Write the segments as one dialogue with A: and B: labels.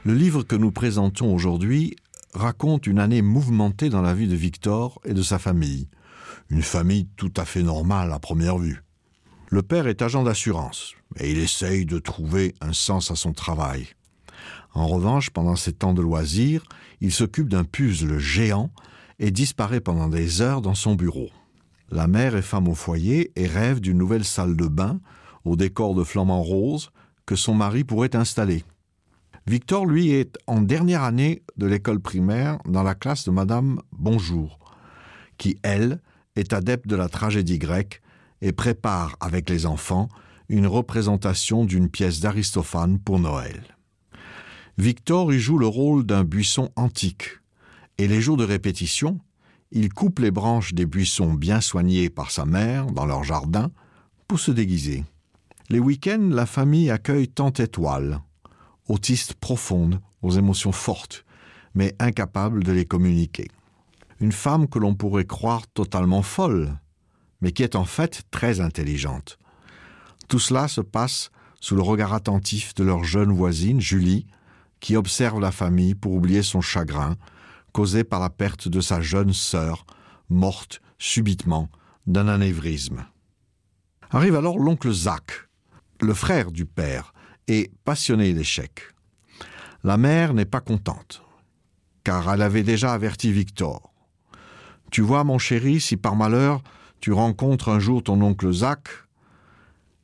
A: Le livre que nous présentons aujourd'hui raconte une année mouvementée dans la vie de Victor et de sa famille. Une famille tout à fait normale à première vue. Le père est agent d'assurance et il essaye de trouver un sens à son travail. En revanche, pendant ses temps de loisirs, il s'occupe d'un puzzle géant et disparaît pendant des heures dans son bureau. La mère est femme au foyer et rêve d'une nouvelle salle de bain au décor de flamants roses que son mari pourrait installer. Victor, lui, est en dernière année de l'école primaire dans la classe de Madame Bonjour, qui, elle, est adepte de la tragédie grecque et prépare avec les enfants une représentation d'une pièce d'Aristophane pour Noël. Victor y joue le rôle d'un buisson antique et les jours de répétition, il coupe les branches des buissons bien soignés par sa mère dans leur jardin pour se déguiser. Les week-ends, la famille accueille tant étoile, autiste profonde, aux émotions fortes, mais incapable de les communiquer. Une femme que l'on pourrait croire totalement folle, mais qui est en fait très intelligente. Tout cela se passe sous le regard attentif de leur jeune voisine, Julie, qui observe la famille pour oublier son chagrin, causé par la perte de sa jeune sœur, morte subitement d'un anévrisme. Arrive alors l'oncle Zach, le frère du père, et passionné d'échecs. La mère n'est pas contente, car elle avait déjà averti Victor. Tu vois, mon chéri, si par malheur tu rencontres un jour ton oncle Zach,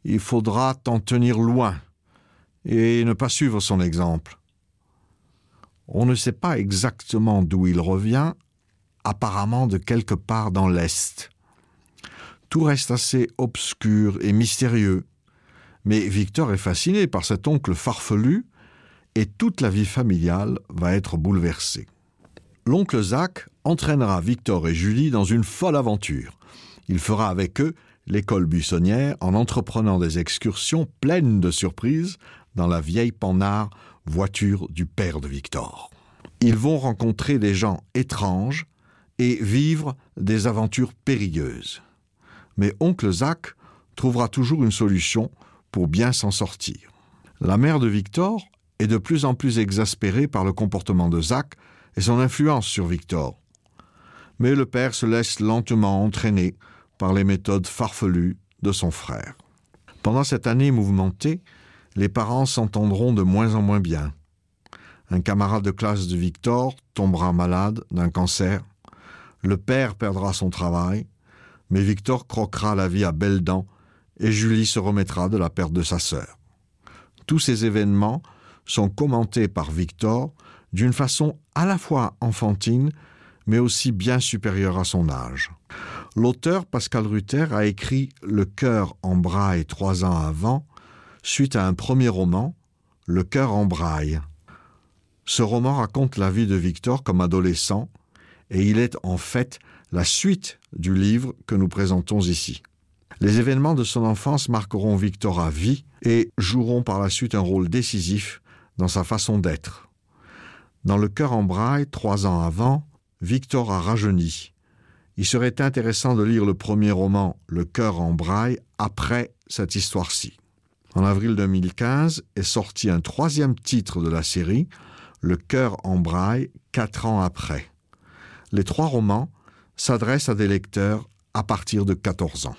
A: il faudra t'en tenir loin et ne pas suivre son exemple. On ne sait pas exactement d'où il revient, apparemment de quelque part dans l'Est. Tout reste assez obscur et mystérieux. Mais Victor est fasciné par cet oncle farfelu et toute la vie familiale va être bouleversée. L'oncle Zach entraînera Victor et Julie dans une folle aventure. Il fera avec eux l'école buissonnière en entreprenant des excursions pleines de surprises dans la vieille panard voiture du père de Victor. Ils vont rencontrer des gens étranges et vivre des aventures périlleuses. Mais oncle Zach trouvera toujours une solution pour bien s'en sortir. La mère de Victor est de plus en plus exaspérée par le comportement de Zach et son influence sur Victor. Mais le père se laisse lentement entraîner par les méthodes farfelues de son frère. Pendant cette année mouvementée, les parents s'entendront de moins en moins bien. Un camarade de classe de Victor tombera malade d'un cancer. Le père perdra son travail, mais Victor croquera la vie à belles dents et Julie se remettra de la perte de sa sœur. Tous ces événements sont commentés par Victor d'une façon à la fois enfantine, mais aussi bien supérieure à son âge. L'auteur Pascal Ruther a écrit Le cœur en braille trois ans avant, suite à un premier roman, Le cœur en braille. Ce roman raconte la vie de Victor comme adolescent et il est en fait la suite du livre que nous présentons ici. Les événements de son enfance marqueront Victor à vie et joueront par la suite un rôle décisif dans sa façon d'être. Dans le cœur en braille, trois ans avant, Victor a rajeuni. Il serait intéressant de lire le premier roman Le cœur en braille après cette histoire-ci. En avril 2015 est sorti un troisième titre de la série, Le cœur en braille, quatre ans après. Les trois romans s'adressent à des lecteurs à partir de 14 ans.